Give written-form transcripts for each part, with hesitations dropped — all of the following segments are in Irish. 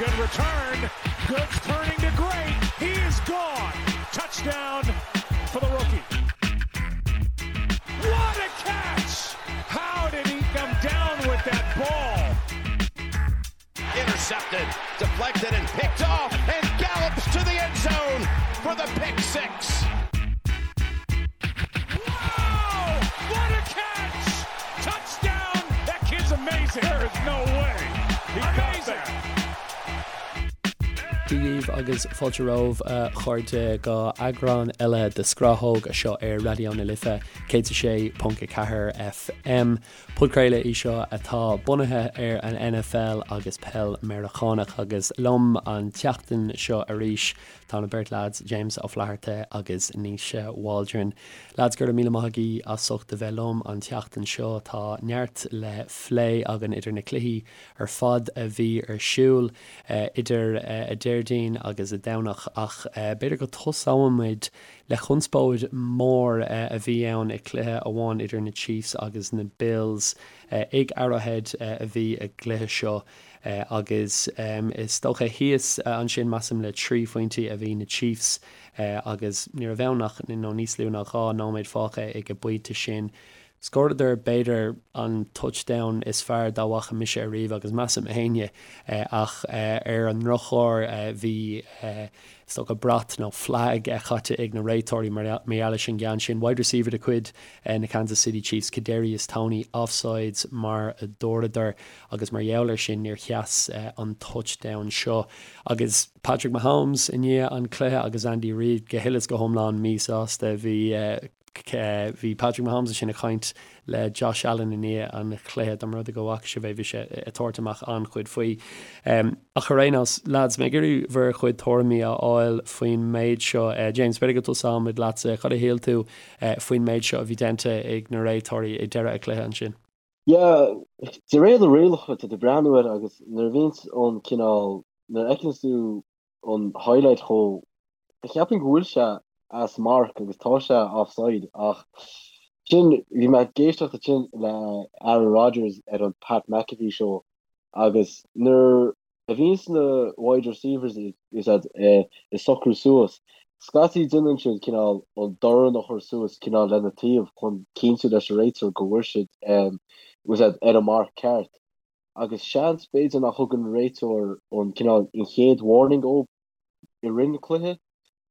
Good return. Good turning to great. He is gone. Touchdown for the rookie. What a catch! How did he come down with that ball? Intercepted, deflected, and picked off, and gallops to the end zone for the pick six. Wow! What a catch! Touchdown! That kid's amazing. There is no way. He amazing. Dia dhaoibh agus fáilte romhaibh a chairde go eagrán eile de Scrathóg anseo ar Raidió na Life 106.4 FM. Podchraoladh í seo atá bunaithe ar an NFL agus peil Meiriceánach agus liom an tseachtain seo arís tá na beirt leaids James Ó Flatharta agus Naoise Waldron. Leaids go raibh míle maith agaibh as ucht a bheith liom an tseachtain seo. Tá neart le phlé againn idir na cluichí ar fad a bhí ar siúl idir a Déardaoin agus a Domhnach ach b'fhéidir go tosóimid le conspóid mór a bhí ann i cluiche amháin idir na Chiefs agus na Bills. Ag Arrowhead a bhí a gcluiche seo agus is dócha thíos ansin measaim le 3 phointí a bhí na Chiefs agus ní raibh ann ach nó níos lú ná 2 nóiméad fágtha ag an bpointe sin. Scóradar b'fhéidir an touchdown is fearr dá bhfaca mise ariamh agus measaim éinne ach ar an ndrochuair bhí is dócha brat nó flag caite ag na réiteoirí mar gheall leis an gceann sin. Wide receiver de chuid na Kansas City Chiefs Kadarius Toney offsides mar a dúradar agus mar gheall ar sin níor sheas an touchdown seo agus Patrick Mahomes i ndiaidh an cluiche agus Andy Reid go huile is go hiomlán míshásta. Bhí Bhí Patrick Mahomes ansin ag caint le Josh Allen i ndiaidh an chluiche, dá mba rud é go bhfaca sibh é, bhí sé ag tabhairt amach an-chuid faoi. Ach ar aon nós, lads, mé ag iarraidh bhur chuid tuairimí a fháil faoin méid seo. James, b'fhéidir go dtosóimid leatsa. Cad a shíl tú faoin méid seo a bhí déanta ag na réiteoirí ag deireadh an chluiche ansin? Yeah, de réir na rialacha, tá tú ag breathnú air agus nuair a bhíonns an cineál, nuair a fheiceanns tú an highlight chomh Cheapfainn go bhfuil sé as marc agus tá sé offside ach sin, bhí mé ag éisteacht ansin le Aaron Rodgers ar an Pat McAfee show agus nuair a bhíonns na wide receivers ag socrú suas, scaití déanann siad cineál an dorn a chur suas cineál lena taobh chun cinntiú leis an réiteoir go bhfuil siad ar an marc ceart agus seans b'fhéidir nach thug an réiteoir an cineál an chéad warning dóibh i rith an cluiche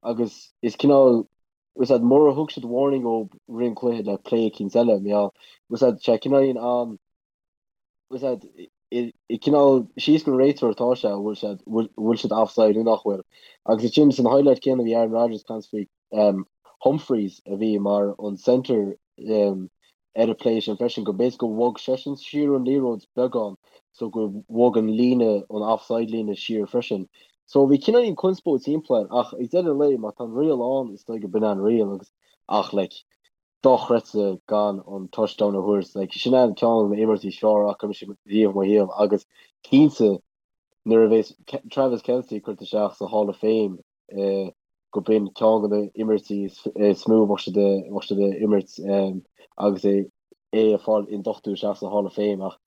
agus is cineál was that mura thug siad warning dóibh rith an cluiche le play eicínt eile mar gheall was that sé cineál an was that i cineál síos go réiteoir atá sé bhfuil siad bhfuil siad offside nó nach bhfuil agus ansin san highlight céanna bhí Aaron Rodgers ag caint faoi Humphries a bhí mar an centre ar an play sin freisin, go mb'fhéidir go bhog seisean siar an liathróid beagán so go bhog an líne, an offside líne siar freisin. So bhí cineáilín conspóid timpeall air ach ag deireadh an lae má tá an riail ann is dóigh go b'in an riail agus ach like dochreidte gan an touchdown a thabhairt like sin an ceann de na imeachtaí is fearr a fhaca mise riamh i mo shaol agus cinnte nuair a bheas Travis Kelce curtha isteach sa Hall of Fame go b'in ceann de na imirtí is mó a bheadh siad bheadh siad a imirt agus é é ag fáil induchtú isteach sa Hall of Fame ach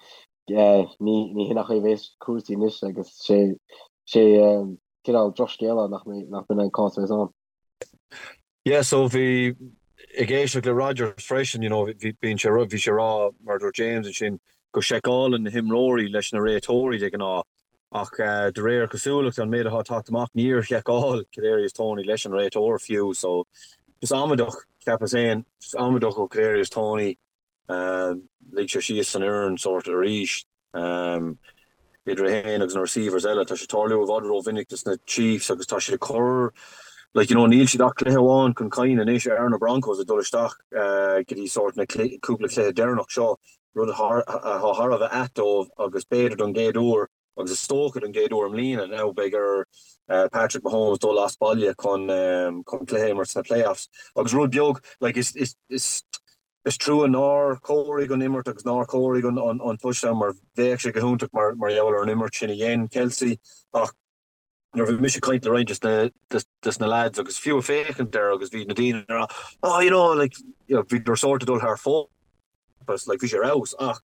ní ní hin an chaoi a bheas cúrsaí anois agus sé sé cineál drochscéal nach mbeidh nach b'in an cás a bheas ann. Yeah so bhí ag éisteacht le Rodgers freisin you know bhí bíonn sé bhí sé ag rá mar a dúirt James ansin go seiceálann na himreoirí leis na réiteoirí de ghnáth Ach de réir cosúlachta, an méid atá ag teacht amach, níor sheiceáil Kadarius Toney leis an réiteoir fiú. So, just amaideach, cheapas féin, just amaideach ó Kadarius Toney. Lig sé síos an fhoireann sórt arís. Idir é féin agus na receivers eile, tá sé ag tarlú i bhfad rómhinic dos na Chiefs agus tá siad ag cur, like, you know, níl siad ach cluiche amháin chun cinn anois ar na Broncos ag dul isteach go dtí sórt na cúpla cluiche deireanach seo. rud atá thar a bheith ait dóibh agus b'fhéidir don gcéad uair, agus is dócha don gcéad uair i mbliana now, beidh ar Patrick Mahomes dul as baile chun cluiche a imirt sna playoffs. Agus rud beag, like, is, is, is, is trua nár chomhairigh an imirt agus nár chomhairigh an, an touchdown mar bheadh sé go hiontach mar, mar gheall ar an imirt sin a dhein Kelce ach nuair a bhí mise ag caint le roinnt des na lads agus fiú ag féachaint air agus bhí na daoine ag rá oh you know like you know bhíodar sórt ag dul thar fóir like bhí sé ar fheabhas ach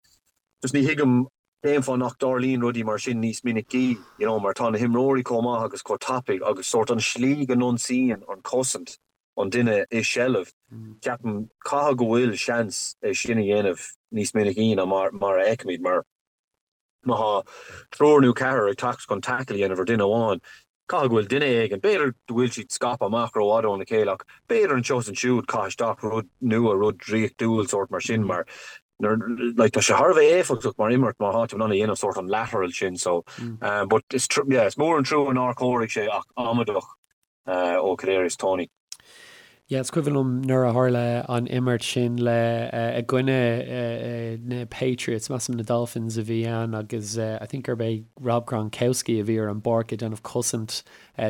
just ní thuigim. Cén fáth nach dtarlaíonn rudaí mar sin níos minicí, you know, mar tá na himreoirí chomh maith agus chomh tapaidh agus sórt an slí go n-ionsaíonn an chosaint an duine i seilbh, ceapaim, caithfidh go bhfuil seans é sin a dhéanamh níos minicí ná mar mar a fheicimid mar má thá triúr nó ceathrar ag teacht chun tackle a dhéanamh ar duine amháin, Caithfidh go bhfuil duine éigin, b'fhéidir go bhfuil siad scaipthe amach rófhada óna chéile ach b'fhéidir anseo is ansiúd caith isteach rud nua, rud draíochtúil sórt mar sin mar like tá sé thar a bheith éifeachtach mar imirt má thá tú in ann a dhéanamh sórt an lateral sin so but is yeah is mór an trua nár chóirigh sé ach amaideach ó Kadarius Toney. Yeah, is cuimhin liom nuair a tharla an imirt sin le i gcoinne na Patriots, measaim na Dolphins a bhí ann agus I think gurb é Rob Gronkowski a bhí ar an bpáirc ag déanamh cosaint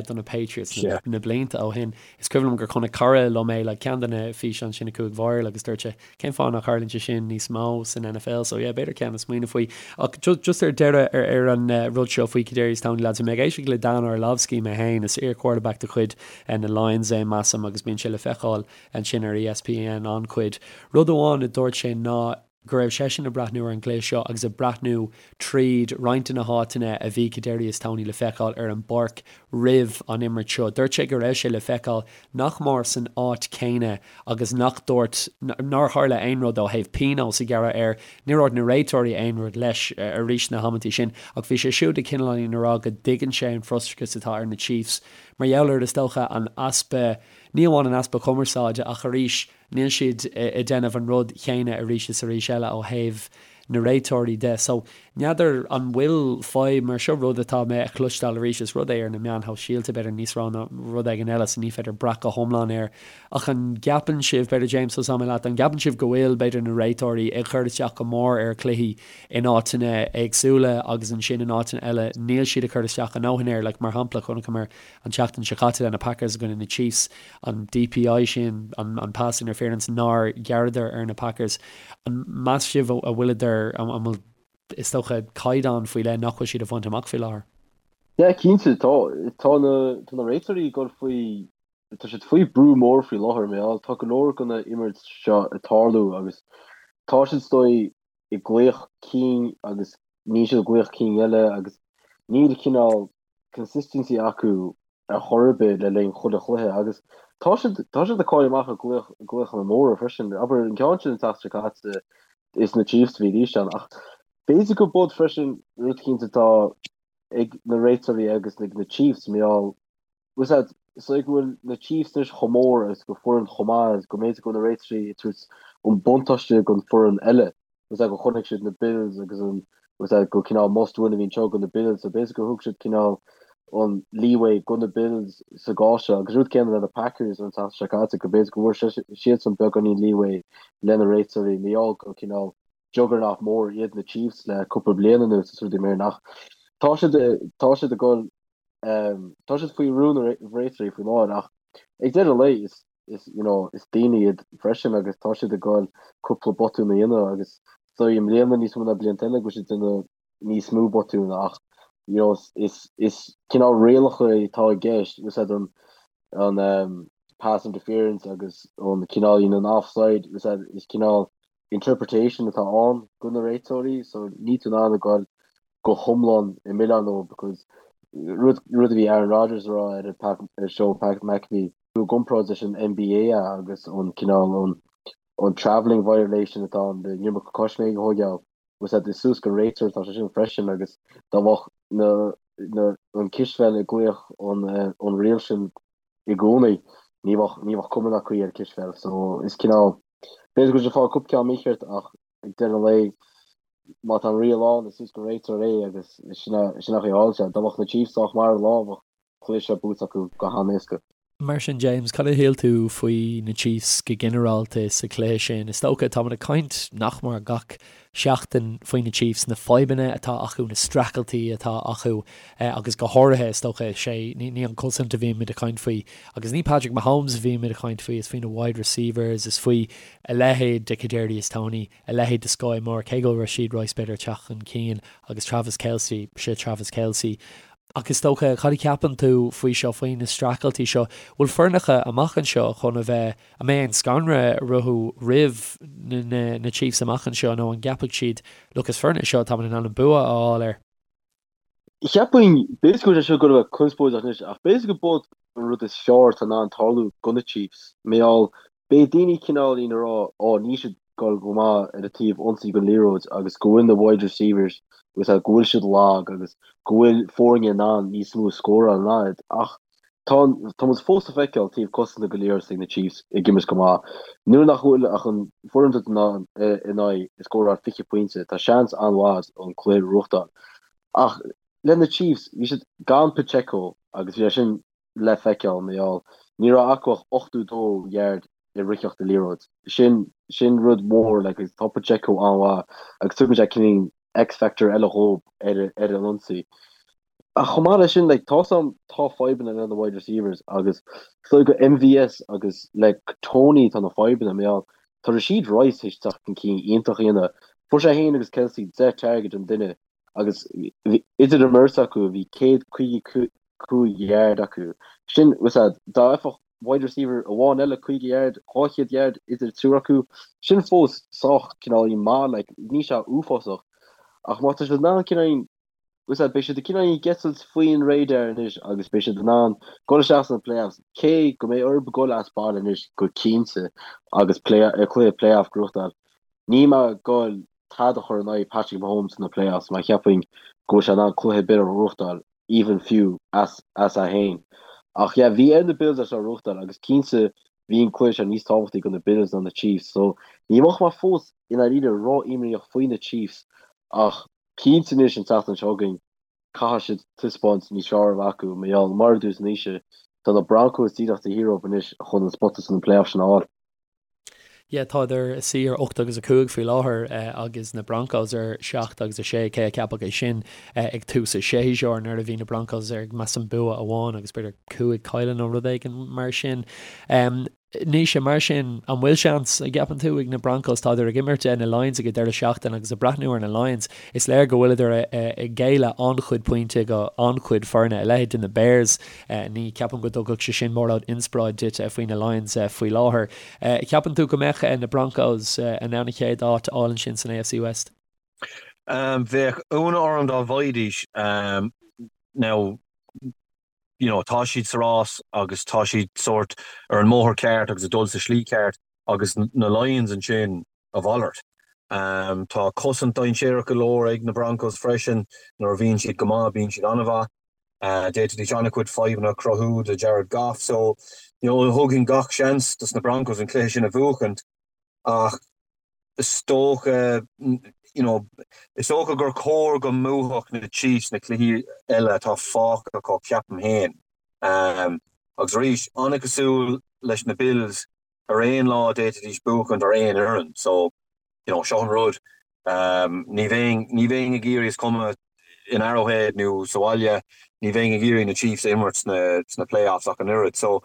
do na Patriots na blianta ó shin. Is cuimhin liom gur chonaic cara liom é, like ceann de na físeáin sin a chuaigh viral agus dúirt sé Cén fáth nach tharlaíonn sé sin níos mó san NFL? So yeah, b'fhéidir ceann le smaoineamh faoi. Ach just ar deireadh ar ar an rud seo faoi Kadarius Toney lads, bhí mé ag éisteacht le Dan Orlovsky mé féin, is iar-quarterback de chuid na Lions é measaim agus bíonn sé le feiceáil ansin ar ESPN an-chuid. Rud amháin a dúirt sé ná go raibh seisean ag breathnú ar an gcluiche seo agus ag breathnú tríd roinnt de na háiteanna a bhí Kadarius Toney le feiceáil ar an bpáirc roimh an imirt seo. Dúirt sé go raibh sé le feiceáil nach mór san áit chéanna agus nach dúirt, nár tharla aon rud ó thaobh pionós a ghearradh air. Níor dhúirt na réiteoirí aon rud leis arís na hamantaí sin ach bhí sé siúd ag cineáilín a rá go dtuigeann sé an frustrachas atá ar na Chiefs mar gheall ar, is dócha, an easpa, ní amháin an easpa cumarsáide ach arís níl siad ag déanamh an rud chéanna arís is arís eile ó thaobh na réiteoirí de. So, n'fheadar an bhfuil fadhb mar seo, rud atá mé a chloisteáil arís, is rud é ar na meáin shóisialta, b'fhéidir níos mó ná rud éigin eile, so ní féidir brath go hiomlán air. Ach an gceapann sibh, b'fhéidir James, tosóidh mé leat, an gceapann sibh go bhfuil, b'fhéidir, na réiteoirí ag cur isteach go mór ar chluichí in áiteanna éagsúla agus ansin in áiteanna eile níl siad ag cur isteach a ndóthain air, like mar shampla, chonaiceamar an tseachtain seo caite le na Packers i gcoinne na Chiefs, an DPI sin, an pass interference nár ghearradar ar na Packers, an meas sibh a bhfuileadar, an bhfuil, is dócha, caighdeán faoi leith nach bhfuil siad a bhaint amach faoi láthair? Yeah, cinnte, tá, tá na, tá na réiteoirí ag dul faoi, tá siad faoi brú mór faoi láthair, mar gheall, tá go leor de na imirt seo ag tarlú agus tá siad is dóigh ag glaoch cinn agus níl siad ag glaoch cinn eile agus níl cineál consistency acu ar chor ar bith le linn chuile chluiche agus tá siad tá siad ag cailleadh amach ar glaoch glaochanna móra freisin. Abair an ceann sin an tseachtain seo caite is na Chiefs a bhí arís ann ach b'fhéidir go bud freisin rud eicínt atá ag na réiteoirí agus ag na Chiefs mar gheall bhfuil a fhios agat is dóigh go bhfuil na Chiefs anois chomh mór agus go foireann chomh maith agus go mb'fhéidir go bhfuil na réiteoirí ag tabhairt an buntáiste don foireann eile. Bhfuil a fhios agat go chonaic siad na Bills agus an bhfuil a fhios agat go cineál must win a bhí anseo do na Bills so b'fhéidir gur thug siad cineál an leeway do na Bills sa gcás seo agus rud céanna le na Packers an tseachtain seo caite go b'fhéidir go bhfuair siadsan beagáinín leeway le na réiteoirí mar gheall go cineál juggernaut mór iad na Chiefs le cúpla bliain anuas is rudaí mar sin ach tá siad tá siad ag dul tá siad faoi bhrú na réiteoirí faoi láthair ach ag deireadh an lae is is you know is daoine iad freisin agus tá siad ag dul cúpla botún a dhéanamh agus is dóigh i mbliana níos mó ná blianta eile go bhfuil siad ag déanamh níos mó botún ach you know is is cineál rialacha atá i gceist bhfuil a fhios agat an an um, pass interference agus an cineál you know, an offside bhfuil a fhios agat is cineál interpretation atá ann do na réiteoirí so níl tú in ann a ghoil go hiomlán i milleán leo because rud rud a bhí Aaron Rodgers a rá ar an ar show Pat McAfee i gcomparáid leis an NBA agus an cineál an an travelling violation atá ann an iomarca coisméig a thógáil bhfuil a fhios agat is suas don réiteoir atá sé sin freisin agus dá mbeadh na na an cispheil ag glaoch an an riail sin i gcónaí ní bheadh ní bheadh cuma ná caoi ar cispheil so is cineál B'fhéidir go bhfuil siad ag fáil cúpla ceann mícheart ach ag deireadh an lae má tá an riail ann is suas don réiteoir é agus sin an chaoi a tharla sé. Dá mbeadh na Chiefs sách maith ar an lá bheadh cluiche seo buaite acu go han-éasca. Mar sin James, cad a shíl tú faoi na Chiefs go ginearálta sa chluiche sin? Is dócha, táimid ag caint nach mór gach seachtain faoi na Chiefs, na fadhbanna atá acu, na streachailtí atá acu agus go háirithe, is dócha, sé, ní an cosaint a bhímid ag caint faoi agus ní Patrick Mahomes a bhímid ag caint faoi, is faoi na wide receivers, is faoi a leithéid de Kadarius Toney, a leithéid de Skyy Moore, cé go bhfuil Rashee Rice b'fhéidir ag teacht chun cinn agus Travis Kelce, sé Travis Kelce. Ach is dócha, cad a cheapann tú faoi seo, faoi na streachailtí seo? Bhfuil foirneacha amach anseo chun a bheith, an mbeidh aon scanradh orthu roimh na Chiefs amach anseo nó an gceapfaidh siad, look, is foireann é seo táimid in ann an bua a fháil air? Cheapfainn, b'fhéidir go bhfuil sé seo ag goil a bheith conspóideach anois, ach b'fhéidir go b'iod an rud is fearr atá in ann tarlú do na Chiefs. Mar gheall, beidh daoine cineáilín ag rá, ó, níl siad ag goil go maith ar an taobh ionsaí den liathróid agus go bhfuil na wide receivers agus go bhfuil siad lag agus go bhfuil foirne in ann níos mó a scóráil ná iad. Ach tá, tá muid fós ag feiceáil taobh cosanta den liathróid ag na Chiefs ag imirt go maith. Nuair nach bhfuil ach an foireann duit in ann, in aghaidh scóráil 20 pointe, tá seans an-mhaith an cluiche a ghnóthachtáil. Ach le na Chiefs, bhí siad gan Pacheco agus bhí sé sin le feiceáil, mar gheall ní raibh acu ach 82 yard i ritheacht an liathróid. Sin, sin rud mór, like, agus tá Pacheco an-mhaith agus tugann sé cineál X-factor eile dhób ar, ar an ionsaí. Ach chomh maith leis sin, like, tá sam, tá fadhbanna le na wide receivers agus is dóigh go MVS agus le Toney tá na fadhbanna, mar gheall tá Rashee Rice théis teacht chun cinn iontach a dhéanamh. Fuair sé féin agus Kelce 10 target an duine agus idir an mbeirt acu bhí 155 yard acu. Sin, was that, dá bhfaigheadh wide receiver amháin eile 50 yard, 200 yard idir triúr acu, sin fós sách cineáilín maith, like, níl sé uafásach. Ach má tá siad in ann cineáilín, was that, beidh siad cineáilín ag eitilt faoin radar anois agus beidh siad in ann dul isteach sna playoffs, cé go mbeidh orthu dul as baile anois go cinnte agus play, cluiche playoff a ghnóthachtáil. Níl mé ag goil tada a chur in aghaidh Patrick Mahomes sna playoffs mar cheapfainn go bhfuil sé in ann cluiche ar bith a ghnóthachtáil, even fiú as as é féin. Ach yeah, bhí ar na Bills é seo a ghnóthachtáil agus cinnte bhí an cluiche seo níos tábhachtaí do na Bills ná na Chiefs so ní bheadh mé fós i ndáiríre ró-imníoch faoi na Chiefs ach cinnte anois an tseachtain seo chugainn caithfidh siad taispeáint níos fearr a bheith acu mar gheall mar a dúirt Naoise tá na Broncos díreach taobh thiar dóibh anois chun an spota sna playoffs sin a fháil. Yeah, tádar ina suí ar 8 agus 5 faoi láthair agus na Broncos ar 7 agus 6, cé a cheapfadh é sin ag tús an tséasúir nuair a bhí na Broncos ar measaim bua amháin agus b'fhéidir 5 cailleadh nó rud éigin mar sin. Naoise, mar sin, an bhfuil seans, an gceapann tú, ag na Broncos? Tádar ag imirt na Lions ag an deireadh seachtaine agus ag breathnú ar na Lions, is léir go bhfuileadar ag géilleadh an-chuid pointe go an-chuid foirne, a leithéid de na Bears. Ní cheapaim go dtugfadh sé sin mórán inspioráid duit faoi na Lions faoi láthair. Ceapann tú go mbeadh na Broncos in ann an chéad áit a fháil ansin san AFC West? Bheadh ionadh orm dá bhfaighidís. Now, you know, tá siad sa rás agus tá siad sórt ar an mbóthar ceart agus ag dul sa slí ceart agus na Lions ansin, a mhalairt. Tá cosaint dainséarach go leor ag na Broncos freisin. Nuair a bhíonn siad go maith, bíonn siad an-mhaith. D'fhéadfaidís an-chuid fadhbanna a chruthú do Jared Goff. So, you know, thugfainn gach seans dos na Broncos an cluiche sin a bhuachaint ach is dócha, you know, is dócha gur chóir go mbuafadh na Chiefs na cluichí eile atá fágtha acu, ceapaim féin. Agus arís, an-chosúil leis na Bills, ar aon lá d'fhéadfaidís buachaint ar aon fhoireann so you know seo an rud ní bheinn ní bheinn ag iarraidh is cuma in Arrowhead nó sa bhaile ní bheinn ag iarraidh na Chiefs a imirt sna sna playoffs ach an oiread so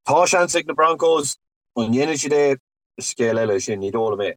tá seans ag na Broncos an ndéanfaidh siad é is scéal eile é sin ní dóigh liom é.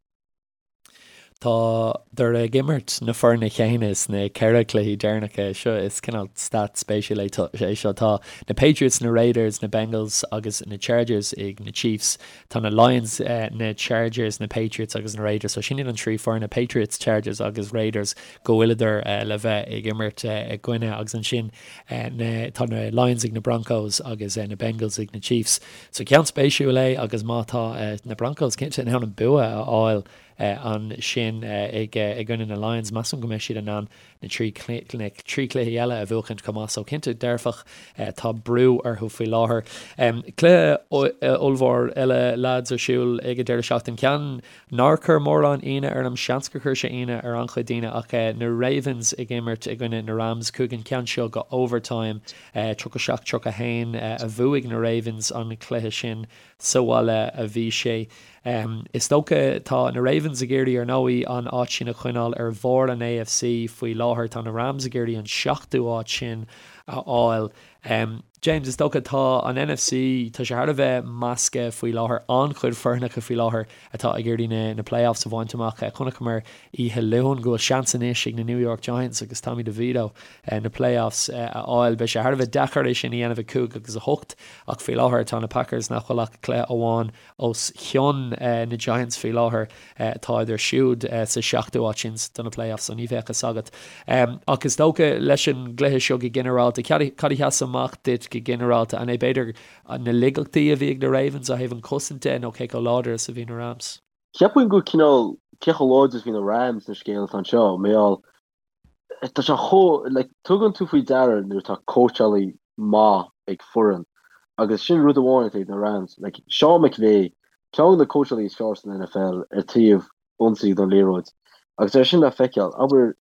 Tádar ag imirt na foirne chéanna sna ceithre cluichí deireanacha seo. Is cineál stat spéisiúil é seo. Tá na Patriots, na Raiders, na Bengals agus na Chargers ag na Chiefs. Tá na Lions, na Chargers, na Patriots agus na Raiders. So sin iad an trí foirne, Patriots, Chargers agus Raiders, go bhfuileadar le bheith ag imirt i gcoinne. Agus ansin tá na Lions ag na Broncos agus na Bengals ag na Chiefs. So ceann spéisiúil é agus má tá na Broncos cinnte in ann an bua a fháil ansin i gcoinne na Lions, measaim go mbeidh siad in ann na trí chluichí eile a bhuachaint chomh maith. So cinnte dearfach tá brú orthu faoi láthair. Cluiche ollmhór eile lads ar siúl ag an deireadh seachtaine. Ceann nár chuir mórán ionadh orm, seans gur chuir sé ionadh ar an-chuid daoine ach na Ravens ag imirt i gcoinne na Rams. Chuaigh an ceann seo go overtime. 37 31 a bhuaigh na Ravens an cluiche sin. Sa bhaile a bhí sé. Is dócha, tá na Ravens ag iarraidh ar ndóigh an áit sin a choinneáil ar bharr an AFC faoi láthair. Tá na Rams ag iarraidh an seachtú áit sin a fháil. James, is dócha, tá an NFC, tá sé thar a bheith measctha faoi láthair, an-chuid foirneacha faoi láthair atá ag iarraidh na na playoffs a bhaint amach. Chonaiceamar oíche Luain go bhfuil seans anois ag na New York Giants agus Tommy DeVito na playoffs a fháil. Beidh sé thar a bheith deacair é sin a dhéanamh ag 5 agus 8 ach faoi láthair tá na Packers nach bhfuil ach cluiche amháin os cionn na Giants faoi láthair. Táid siúd sa seachtú áit sin do na playoffs so ní bheadh fhios agat. Ach is dócha leis an gcluiche seo go ginearálta, cad a sheas amach duit go ginearálta? An é b'fhéidir na laigeachtaí a bhí ag na Ravens ó thaobh an chosaint de nó cé chomh láidir is a bhí na Rams? Cheapfainn go cineál cé chomh láidir is a bhí na Rams an scéal atá anseo. Mar gheall tá sé chomh, like, tugann tú faoi deara nuair atá cóitseálaí maith ag foireann agus sin rud amháin atá ag na Rams. Like, Sean McVay, ceann de na cóitseálaí is fearr san NFL ar taobh ionsaí don liathróid agus é sin le feiceáil. Abair,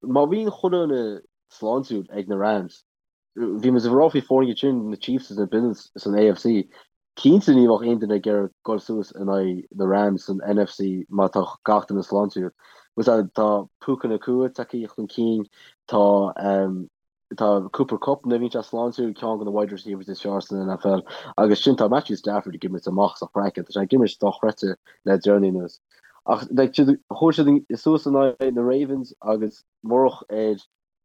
má bhíonn chuile dhuine sláintiúil ag na Rams, Bhí muid ag rá faoi foirne sin na Chiefs is na Bills san AFC. Cinnte ní bheadh aon duine ag iarraidh dul suas in aghaidh na Rams san NFC má tá gach duine sláintiúil. Tá Puka Nacua tagtha chun cinn, tá tá Cooper Kupp nuair a bhíonn sé sláintiúil, ceann de na wide receivers is fearr san NFL agus sin tá Matthew Stafford ag imirt amach as a chraiceann, tá sé ag imirt dochreidte le deireanaí anuas. Ach like chuaigh siad suas in aghaidh na Ravens agus murach ar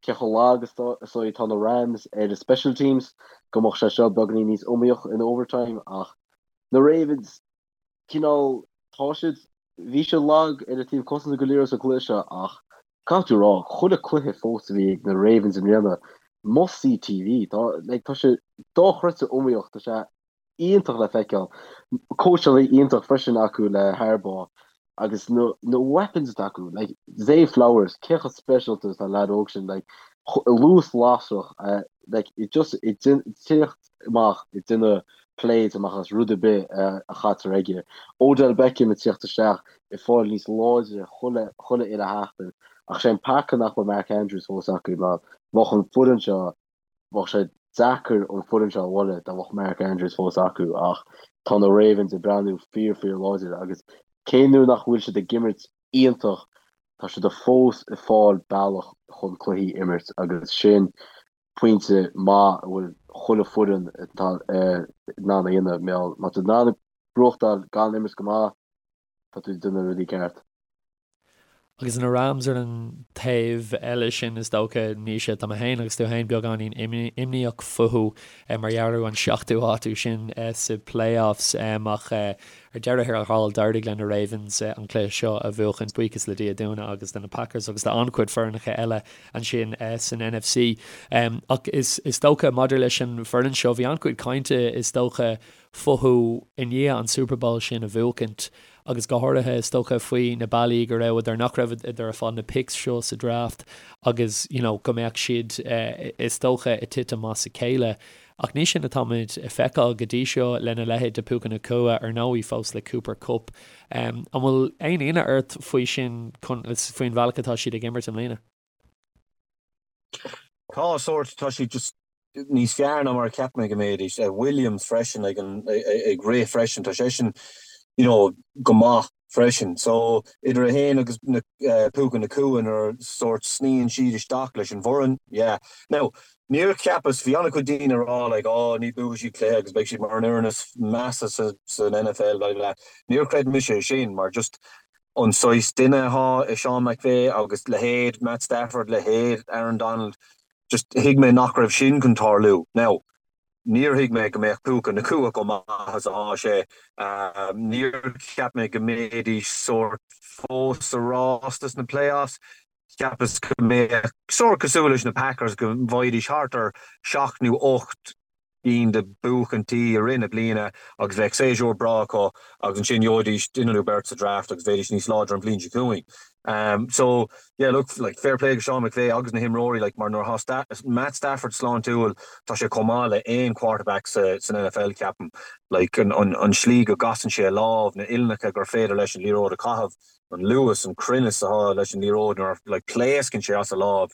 cé chomh lag is atá na Rams ar a special teams, go mbeadh sé seo beagáinín níos iomaíoch in overtime ach na Ravens, cineál, tá siad, bhí siad lag ar an taobh cosanta go léir sa gcluiche seo ach caithfidh tú a rá, chuile cluiche fós a bhí ag na Ravens i mbliana, must see TV, tá, like, tá sé dochreidte iomaíoch, tá sé iontach le feiceáil. Cóitseálaí iontach freisin acu le Harbaugh agus na na weapons atá acu like Zay Flowers cé chomh speisialta is atá an leaid óg sin like luas lasrach like it just ag tíocht amach ag déanamh plays amach as rud ar bith a chaitear aige. Odell Beckham ag tíocht isteach ag fáil níos láidre chuile chuile uile sheachtain ach sé an peaca nach bhfuil Mark Andrews fós acu mar bheadh an foireann seo Bheadh sé deacair an foireann seo a bhualadh dá mbeadh Mark Andrews fós acu ach tá na Ravens ag breathnú fíor fíor láidir agus cé nuair nach bhfuil siad ag imirt iontach tá siad fós ag fáil bealach chun cluichí a imirt agus sin pointe maith a bhfuil chuile foireann in ann a dhéanamh má tá tú in ann buachtáil gan imirt go maith tá tú ag déanamh rudaí ceart. Agus na Rams ar an taobh eile sin, is dócha, Naoise, tá mé féin agus tú féin beagáinín imníoch fúthu mar gheall ar an seachtú háit sin sa playoffs ach ar deireadh thiar thall d'éirigh le na Ravens an cluiche seo a bhuachan, buíochas le Dia dúinne agus do na Packers agus d'an-chuid foirneacha eile ansin san NFC. Ach is dócha maidir leis an bhfoireann seo, bhí an-chuid cainte is dócha fúthu i ndiaidh an Super Bowl sin a bhuachaint agus go háirithe is dócha faoi na bealaí go rabhadar, nach rabhadar ag fáil na picks seo sa draft agus you know go mbeadh siad is dócha ag titim as a chéile. Ach ní sin atáimid ag feiceáil go dtí seo lena leithéid de Puka Nacua, ar ndóigh fós le Cooper Kupp. An bhfuil aon ionadh ort faoi sin, faoin bhealach atá siad ag imirt i mbliana? Tá sórt, tá siad just níos fearr ná mar a cheap mé go mbeidís. Williams freisin ag an ag rith freisin, tá seisean you know go maith freisin. So idir é féin agus na Puka Nacua nuair sórt sníonn siad isteach leis an bhfoireann, yeah. Now níor cheapas, bhí an-chuid daoine ag rá like oh ní buafaidh siad cluiche agus beidh siad mar an fhoireann is measa sa san NFL blah blah. Níor chreid mise é sin mar just an saghas duine atá i Sean McVay agus leithéid Matt Stafford, leithéid Aaron Donald, just thuig mé nach raibh sin chun tarlú. Now, níor thuig mé go mbeadh Puka Nacua chomh maith is atá sé. Níor cheap mé go mbeidís sórt fós sa rás dos na playoffs. Cheapas go mbeadh sórt cosúil leis na Packers go bhfaighidís thart ar sheacht nó ocht gcinn de buachaintí i rith na bliana agus bheadh séasúr breá acu agus ansin gheobhaidís duine nó beirt sa draft agus bheidís níos láidre an bhliain seo chugainn. So yeah look like fair play go Sean McVay agus na himreoirí like mar nuair atá Matt Stafford sláintiúil tá sé chomh maith le aon quarterback sa san NFL ceapaim. Like an an an slí go gcasann sé a lámh, na uillinneacha gur féidir leis an liathróid a chaitheamh, an luas, an cruinneas atá leis an liathróid nuair like pléascann sé as a lámh.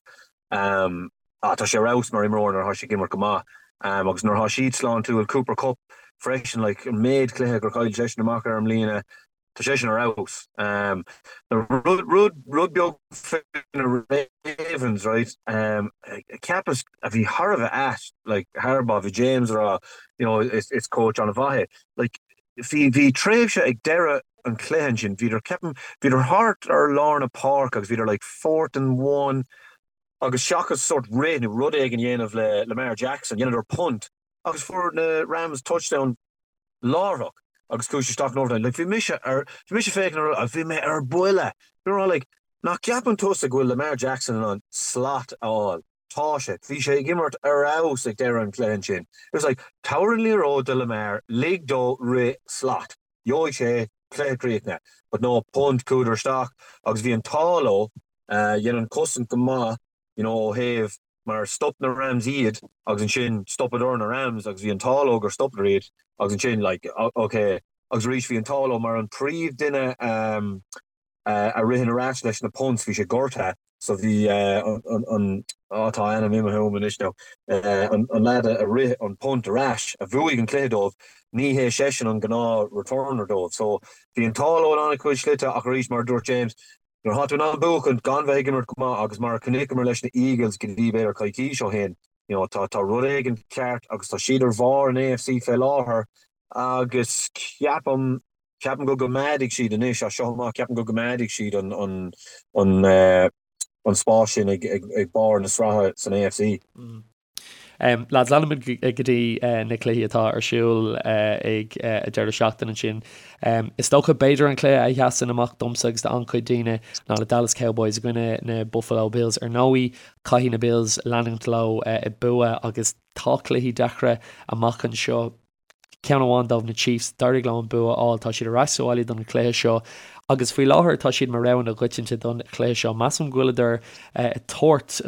Ah, tá sé ar fheabhas mar imreoir nuair atá sé ag imirt go maith. Agus nuair atá siad sláintiúil, Cooper Kupp freisin, like, an méid cluiche gur chaill seisean amach ar i mbliana. Tá sé sin ar fheabhas. Rud, rud, rud beag faoi na Ravens, right, cheapas a bhí thar a bheith ait, like, Harbaugh, bhí James ag rá, you know, is, is coach an-mhaith é. Like, bhí, bhí tréimhse ag deireadh an chluiche ansin, bhíodar, ceapaim, bhíodar thart ar lár na páirce agus bhíodar like fourth and one agus seachas sort rith nó rud éigin a dhéanamh le Lamar Jackson, dheineadar punt agus fuair na Rams touchdown láithreach agus chuaigh sé isteach in overtime. Like, bhí mise ar, bhí mise féachaint ar, agus bhí mé ar buile. Bhí mé like, nach gceapann tusa go bhfuil Lamar Jackson in ann slat a fháil? Tá sé. Bhí sé ag imirt ar fheabhas ag deireadh an chluiche ansin. It was like, tabhair an liathróid do Lamar, lig dó rith slat. Gheobhaidh sé cluiche críochnaithe. But no, punt, chuadar isteach agus bhí an t-ádh leo, dhein an cosaint go maith, you know, ó thaobh mar stop na Rams iad agus ansin stopadar na Rams agus bhí an t-ádh leo gur stopadar iad agus ansin like ok agus arís bhí an t-ádh leo mar an príomh duine um, a ritheann ar ais leis na punts bhí sé gortaithe so bhí uh, an, an, oh, tá a ainm imithe uaim anois now uh, an, an lad a rith an punt ar ais a bhuaigh an cluiche dóibh ní hé seisean an gnáth returner dóibh so bhí an t-ádh leo in an-chuid slite ach arís mar a dúirt James Nuair atá tú in ann buachaint gan bheith ag imirt go maith agus mar a chonaiceamar leis na Eagles go dtí b'fhéidir coicís ó shin, you know, tá tá rud éigin ceart agus tá siad ar bharr an AFC fé láthair agus ceapaim ceapaim go gcoimeádfaidh siad anois as seo amach ceapaim go gcoimeádfaidh siad an an an an spás sin ag ag ag barr na sraithe san AFC. Lads, leanfaimid go dtí na cluichí atá ar siúl ag an deireadh seachtaine ansin. Is dócha b'fhéidir an cluiche a sheasann amach domsa agus d'an-chuid daoine ná na Dallas Cowboys i gcoinne na Buffalo Bills. Ar ndóigh, caithfidh na Bills leanúint leo ag bua agus tá cluichí deacra amach anseo. Ceann amháin dóibh, na Chiefs, d'éirigh leo an bua a fháil. Tá siad ar ais sa bhaile don chluiche seo agus faoi láthair tá siad mar rogha na coitianta don chluiche seo. Measaim go bhfuileadar ag tabhairt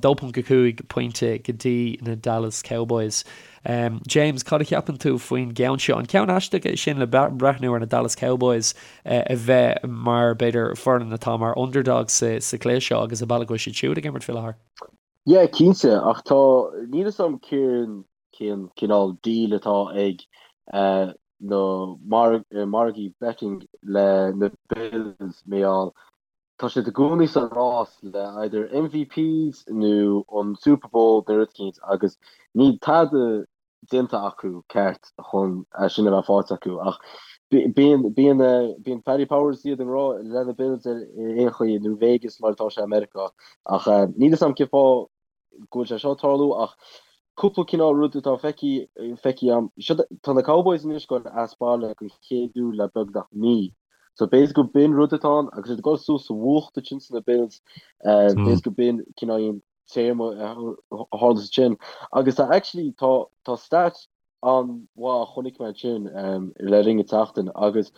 2.5 pointe go dtí na Dallas Cowboys. James, cad a cheapann tú faoin gceann seo? An ceann aisteach é sin le breathnú ar na Dallas Cowboys a bheith mar, b'fhéidir, foireann atá mar underdogs sa chluiche seo agus an bealach go bhfuil siad siúd ag imirt faoi láthair? Yeah, cinnte, ach tá, níl fhios a'm cén cén cineál deal atá ag na margaí betting le na Bills mar gheall tá siad i gcónaí sa rás le either MVPs nó an Super Bowl nó rud eicínt agus níl tada déanta acu ceart chun é sin a bheith faighte acu ach bíonn bíonn bíonn Paddy Powers iad i ngrá le na Bills ar aon chaoi nó Vegas mar atá sé i Meiriceá ach níl fhios a'm cén fáth go bhfuil sé seo ag tarlú ach cúpla cineál rud atá feicthe feicthe a'm. Seo tá na Cowboys anois ag dul as baile don chéad uair le beagnach mí. So b'fhéidir go b'in rud atá ann agus iad ag dul suas sa bhfuacht ansin sna Bills b'fhéidir go b'in cineál téarma a tharla ansin. Agus tá actually tá tá stat an-mhaith a chonaic mé ansin le linn an tseachtain agus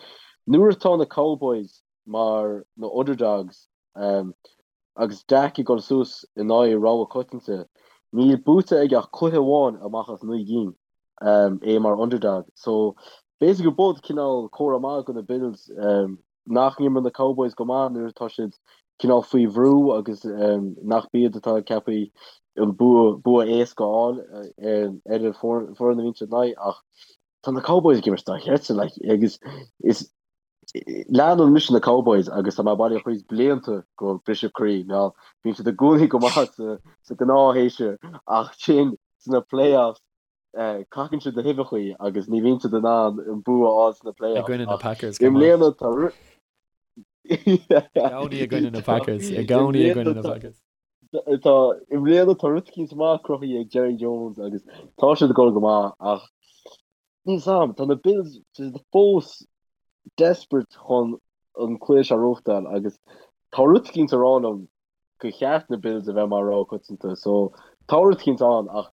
nuair atá na Cowboys mar na underdogs Agus Dak ag dul suas in aghaidh rogha coitianta, níl buaite aige ach cluiche amháin amach as 9 gcinn, é mar underdog. So, b'fhéidir go b'in cineál comhartha maith do na Bills nach n-imríonn na Cowboys go maith nuair atá siad cineál faoi bhrú agus nach b'iad atá ceaptha an bua bua éasca a fháil ar an foireann a bhíonn siad in aghaidh ach tá na Cowboys ag imirt dochreidte like agus is Leanann mise na Cowboys agus tá mé bailithe chuig blianta go briseadh croí mar bíonn siad i gcónaí go maith sa gnáthshéasúr ach sin sna playoffs cacann siad na huibheachaí agus ní bhíonn siad in ann an bua a fháil sna I playoffs gcoinne na ach Packers i go maith. mbliana tá I gcónaí i gcoinne na Packers. I gcónaí i gcoinne na Packers. Tá i mbliana tá rud eicínt maith cruthaithe ag Jerry Jones agus tá siad ag dul go maith ach níl 's a'm, tá na Bills fós desperate chun an cluiche seo a ghnóthachtáil agus tá rud eicínt ag rá liom gur cheart na Bills a bheith mar rogha coitianta so tá rud eicínt ann ach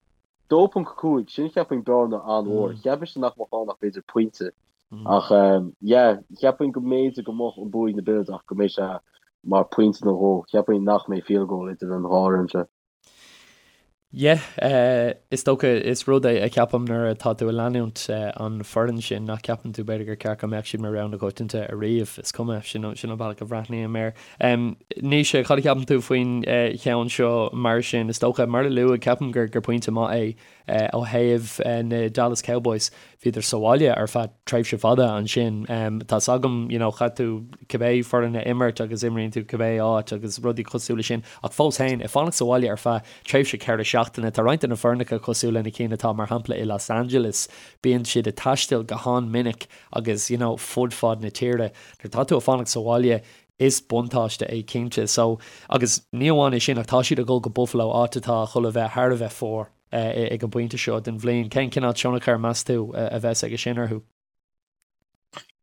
2.5 sin cheapfainn bearna an-mhór. Cheap mise nach mbeadh ann ach b'fhéidir pointe. Ach yeah, cheapfainn go mb'fhéidir go mbeadh an bua ag na Bills ach go mbeidh sé mar pointe nó dhó. Cheapfainn nach mbeidh field goal idir an dhá fhoireann seo. Yeah, is dócha, is rud é a cheapaim nuair atá tú ag leanúint an foireann sin nach ceapann tú b'fhéidir gur ceart go mbeadh siad mar rogha na coitianta ariamh. Is cuma, sin an bealach a bhreathnaím air. Naoise, cad a cheapann tú faoin cheann seo mar sin? Is dócha, mar a luadh, ceapaim gur pointe maith é ó thaobh na Dallas Cowboys. Bhíodar sa bhaile ar feadh tréimhse fada ansin. Tá's agam, you know, chaith tú cibé foireann a imirt agus imríonn tú cibé áit agus rudaí cosúil leis sin ach fós féin, ag fanacht sa bhaile ar feadh tréimhse 4 seachtaine, tá roinnt de na foirneacha cosúil le na cinn atá mar shampla i Los Angeles, bíonn siad ag taisteal go han-minic agus, you know, fud fad na tíre. Nuair atá tú ag fanacht sa bhaile, is buntáiste é cinnte. So, agus ní amháin é sin ach tá siad ag dul go Buffalo, áit atá chun a bheith thar a bheith fuar. ag an bpointe seo den bhliain. Cén cineál tionchar, meas tú, a bheas aige sin orthu?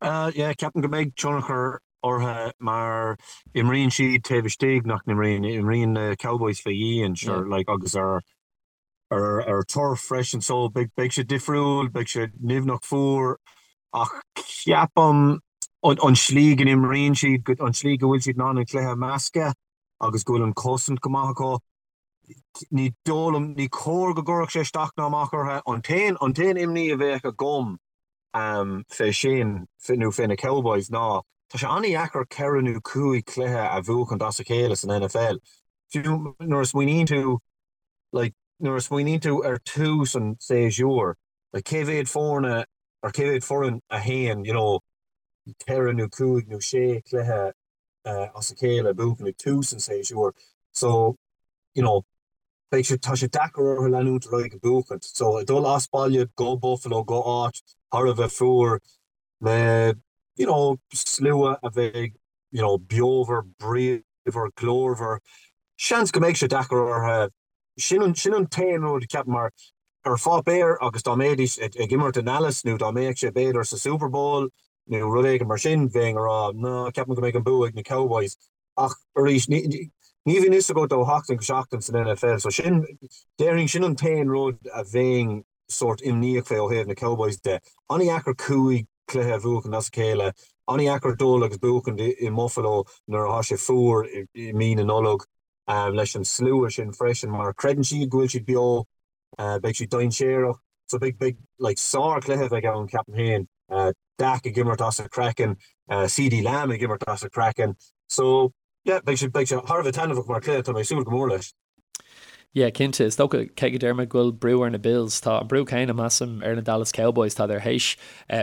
Yeah, ceapaim go mbeidh tionchar orthu mar imríonn siad taobh istigh, nach n-imríonn? Imríonn na Cowboys fé dhíon, sure, like, agus ar ar turf freisin, so beidh beidh sé difriúil, beidh sé nimhneach fuar ach ceapaim an slí go n-imríonn siad, an slí go bhfuil siad in ann an cluiche a mheascadh agus go bhfuil an chosaint go maith acu, Ní dóigh liom, ní cóir go gcuirfeadh sé isteach ná amach orthu. An t-aon, an t-aon imní a bheadh agam fé sin, nó fé na Cowboys ná, tá sé an-dheacair ceithre nó cúig chluiche a bhuachaint as a chéile san NFL. Fiú nuair a smaoiníonn tú, like, nuair a smaoiníonn tú ar tús an tséasúir, like, cé mhéad foirne, or cé mhéad foireann a théann, you know, ceithre nó cúig nó sé chluiche as a chéile buachan ag tús an tséasúir so you know beidh sé tá sé deacair orthu leanúint ar aghaidh ag buachaint. So ag dul as baile go Buffalo go áit thar a bheith fuar le you know slua a bheidh you know beomhar, bríomhar, glórmhar, seans go mbeidh sé deacair orthu. Sin an sin an t-aon rud ceapaim mar ar pháipéar agus dá mbeidís ag imirt i nDallas nó dá mbeadh sé b'fhéidir sa Super Bowl nó rud éigin mar sin, bheinn ag rá, ná, ceapaim go mbeidh an bua ag na Cowboys. Ach arís, ní bhíonn fhios agat ó sheachtain go seachtain san NFL, so sin, déarfainn, sin an t-aon rud a bheinn sórt imníoch fé ó thaobh na Cowboys de. An-dheacair cúig chluiche a bhuachan as a chéile, an-dheacair dul agus buachan i mBuffalo nuair atá sé fuar i mí na Nollag leis an slua sin freisin mar creideann siad go bhfuil siad beo. Beidh siad dainséarach. So beidh, beidh, like, sár-chluiche a bheidh ann, ceapaim féin. Dak ag imirt as a chraiceann, CeeDee Lamb ag imirt as a chraiceann. So, yeah, beidh sé, beidh sé thar a bheith taitneamhach mar chluiche, tá mé ag súil go mór leis. Yeah, cinnte. Is dócha, cé go deir mé go bhfuil brú ar na Bills, tá an brú céanna, measaim, ar na Dallas Cowboys. Tádar théis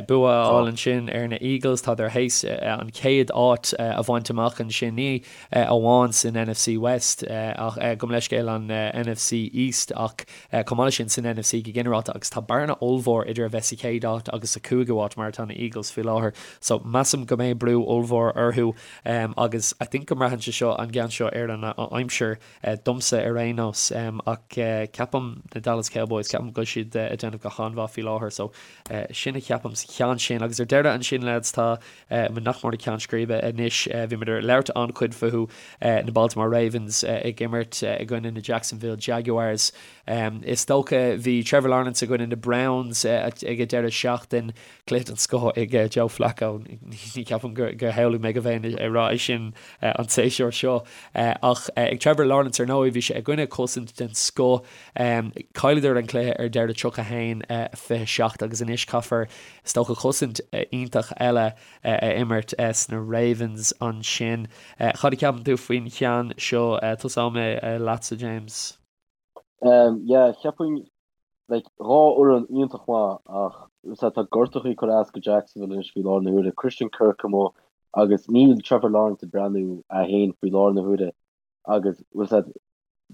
bua a fháil ansin ar na Eagles, tádar théis an chéad áit a bhaint amach ansin. Ní amháin san NFC West ach gabh mo leithscéal an NFC East ach chomh maith leis sin san NFC go ginearálta agus tá bearna ollmhór idir a bheith sa chéad áit agus sa chúigiú háit mar atá na Eagles faoi láthair so measaim go mbeidh brú ollmhór orthu agus I think go mbraitheann sé seo an gceann seo ar an aimsir domsa ar aon nós ach ceapaim na Dallas Cowboys ceapaim go bhfuil siad ag déanamh go han-mhaith faoi láthair so sin a cheapaim sa cheann sin agus ar deireadh ansin lads tá Muid nach mór ag ceann scríbe anois. Bhí muid ag labhairt an-chuid fúthu, na Baltimore Ravens ag imirt i gcoinne na Jacksonville Jaguars. Is dócha bhí Trevor Lawrence i gcoinne na Browns ag an deireadh seachtain. Cluiche den scoth ag Joe Flacco. Ní cheapaim gur shamhlaigh mé go mbeinn ag rá é sin an séasúr seo. Ach ag Trevor Lawrence ar ndóigh bhí sé i gcoinne cosaint den scoth. Chailleadar an cluiche ar deireadh 31, 27 agus anois caithfear Is dócha cosaint iontach eile a imirt sna Ravens ansin. Cad a cheapann tú faoin cheann seo? Tosóidh mé leatsa, James. Yeah, cheapfainn, like, dhá fhoireann iontach maith ach tá gortachaí ag cur as go Jacksonville anois faoi láthair na huaire. Christian Kirk amuigh agus níl Trevor Lawrence ag breathnú é féin faoi láthair na huaire agus bhfuil a fhios agat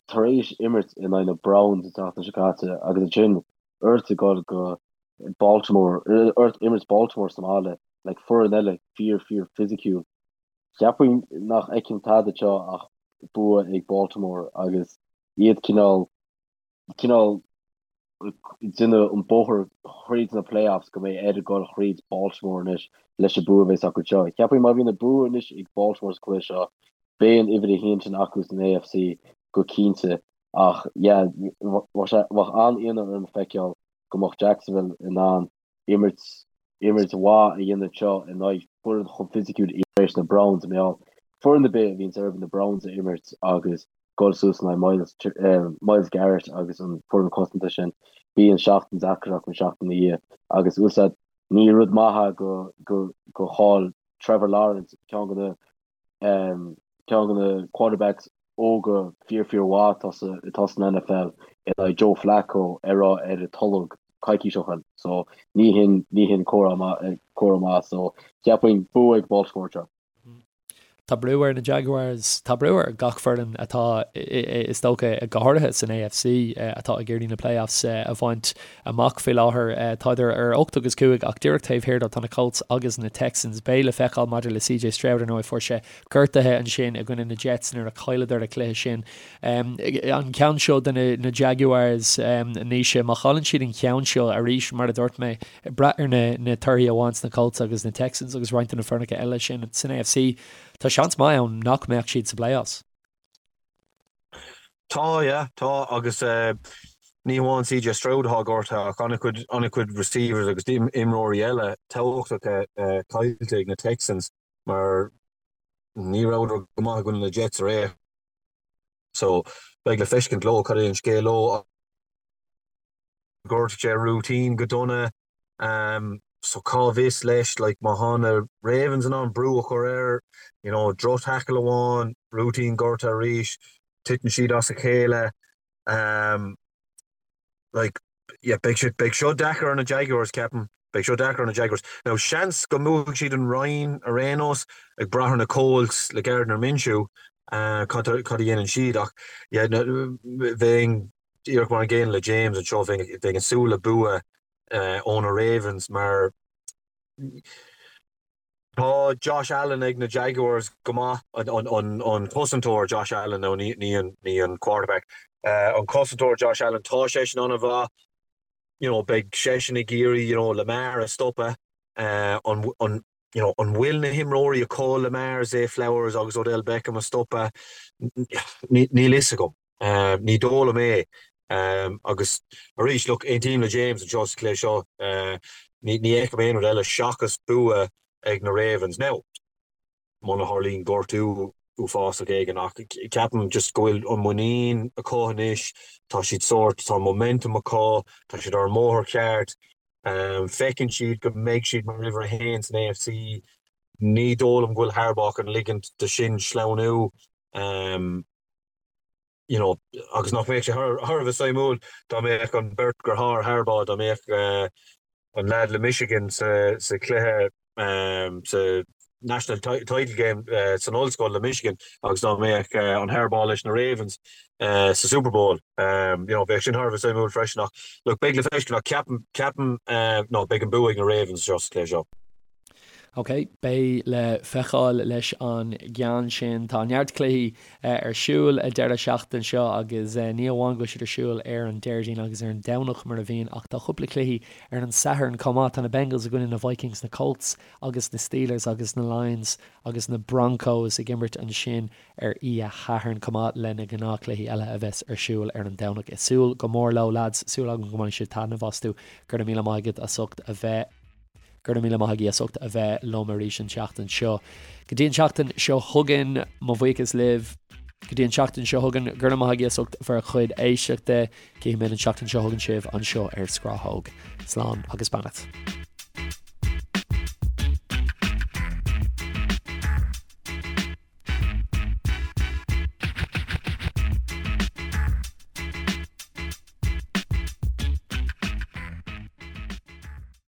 tar éis imirt in aghaidh na Browns an tseachtain seo caite agus ansin ort ag dul go Baltimore, ort imirt Baltimore sa mbaile, like foireann eile fíor fíor fisiciúil. Cheapfainn nach fheicim tada anseo ach bua ag Baltimore agus iad cineál cineál déanamh an bóthar thríd na playoffs go mbeidh air dul thríd Baltimore anois leis an bua a bheas acu anseo. Cheapfainn má bhíonn an bua anois ag Baltimore sa chluiche seo beidh an uimhir a haon sin acu san AFC go cinnte ach yeah bheadh sé bheadh an-ionadh orm feiceáil go mbeadh Jacksonville in ann imirt imirt mhaith a dhéanamh anseo in aghaidh foireann chomh fisiciúil tar éis na Browns mar gheall foireann ar bith a bhíonns orthu na Browns a imirt agus dul suas in aghaidh Myles Myles Garrett agus an foireann cosanta sin bíonn seachtain deacair acu an seachtain ina dhiaidh agus bhfuil a fhios agat ní rud maith é go go go chaill Trevor Lawrence ceann de na ceann de na quarterbacks óga fíor fíor mhaith atá sa atá san NFL in aghaidh Joe Flacco ar ar an tolg. coicís ó shin so ní hin ní hin comhartha maith comhartha maith so cheapfainn bua ag Baltimore anseo. Tá brú ar na Jaguars, tá brú ar gach foireann atá, is dócha, go háirithe san AFC, atá ag iarraidh na playoffs a bhaint amach faoi láthair. Tádar ar 8 agus 5 ach díreach taobh thiar dó tá na Colts agus na Texans. Beidh le feiceáil maidir le CJ Stroud, ar ndóigh, fuair sé gortuithe ansin i gcoinne na Jets nuair a chailleadar an cluiche sin. An ceann seo do na Jaguars, Naoise, má chailleann siad an ceann seo arís, mar a dúirt mé, ag brath ar na torthaí a bhain na Colts agus na Texans agus roinnt de na foirneacha eile sin san AFC, tá seans maith ann nach mbeadh siad sa playoffs. Tá, yeah, tá agus ní hamháin CJ Stroud atá gortaithe ach an-chuid, an-chuid receivers agus imreoirí eile tábhachtacha caillte ag na Texans mar ní rabhadar go maith i gcoinne na Jets aréir. So beidh le feiscint leo cad é an scéal leo. Ghortaigh sé Rúitín go dona so cá bhfios leis like má thá na Ravens in ann brú a chur air you know droch tackle amháin, Rúitín gortaithe arís, titeann siad as a chéile like yeah beidh sé beidh seo deacair ar na Jaguars ceapaim, beidh seo deacair ar na Jaguars. Now seans go mbuafaidh siad an roinn ar aon nós ag brath ar na Colts le Gardner Minshew cad cad a dhéanann siad ach yeah bheinn Díreach mar an gcéanna le James anseo, bheinn ag súil le bua ó na Ravens mar tá Josh Allen ag na Jaguars go maith, an cosantóir Josh Allen, nó ní an quarterback, an cosantóir Josh Allen, tá seisean an-mhaith, you know, beidh seisean ag iarraidh, you know, Lamar a stopadh, an, you know, an bhfuil na himreoirí acu Lamar, Zay Flowers agus Odell Beckham a stopadh? Níl fhios agam. Ní dóigh liom é. Agus arís, look, aontaím le James anseo sa chluiche seo. Ní fheicim aon rud eile seachas bua ag na Ravens. Now, muna tharlaíonn gortú uafásach éigin ach ceapaim just go bhfuil an muinín acu anois, tá siad sórt, tá an momentum acu, tá siad ar an mbóthar ceart. Feiceann siad go mbeidh siad mar uimhir a haon san AFC. Ní dóigh liom go bhfuil Harbaugh chun ligint do sin sleamhnú. You know, agus nach mbeadh sé thar a bheith suimiúil dá mbeadh an beirt deartháir Harbaugh, dá mbeadh an leaid le Michigan sa chluiche sa National Title Game san ollscoil le Michigan agus dá mbeadh an Harbaugh leis na Ravens sa Super Bowl. You know, bheadh sin thar a bheith suimiúil freisin ach look, beidh le feiscint ach ceapaim, ceapaim, no, beidh an bua ag na Ravens seo sa chluiche seo. Ok, beidh le feiceáil leis an gceann sin. Tá neart cluichí ar siúl an deireadh seachtaine seo agus ní amháin go bhfuil siad ar siúl ar an Déardaoin agus ar an Domhnach mar a bhíonn ach tá cúpla cluichí ar an Satharn chomh maith. Tá na Bengals i gcoinne na Vikings, na Colts agus na Steelers agus na Lions agus na Broncos ag imirt ansin ar oíche Shathairn chomh maith le na gnáthchluichí eile a bheas ar siúl ar an Domhnach. Ag súil go mór leo lads, súil agam go mbainfidh sibh taitneamh astu. Go raibh míle maith agat as ucht a bheith. Go raibh míle maith agaibh as ucht a bheith liom arís an tseachtain seo. Go dtí an tseachtain seo chugainn, mo bhuíochas libh. Go dtí an tseachtain seo chugainn, go raibh maith agaibh as ucht bhur chuid éisteachta. Cífimid an tseachtain seo chugainn sibh anseo ar Scrathóg. Slán agus beannacht.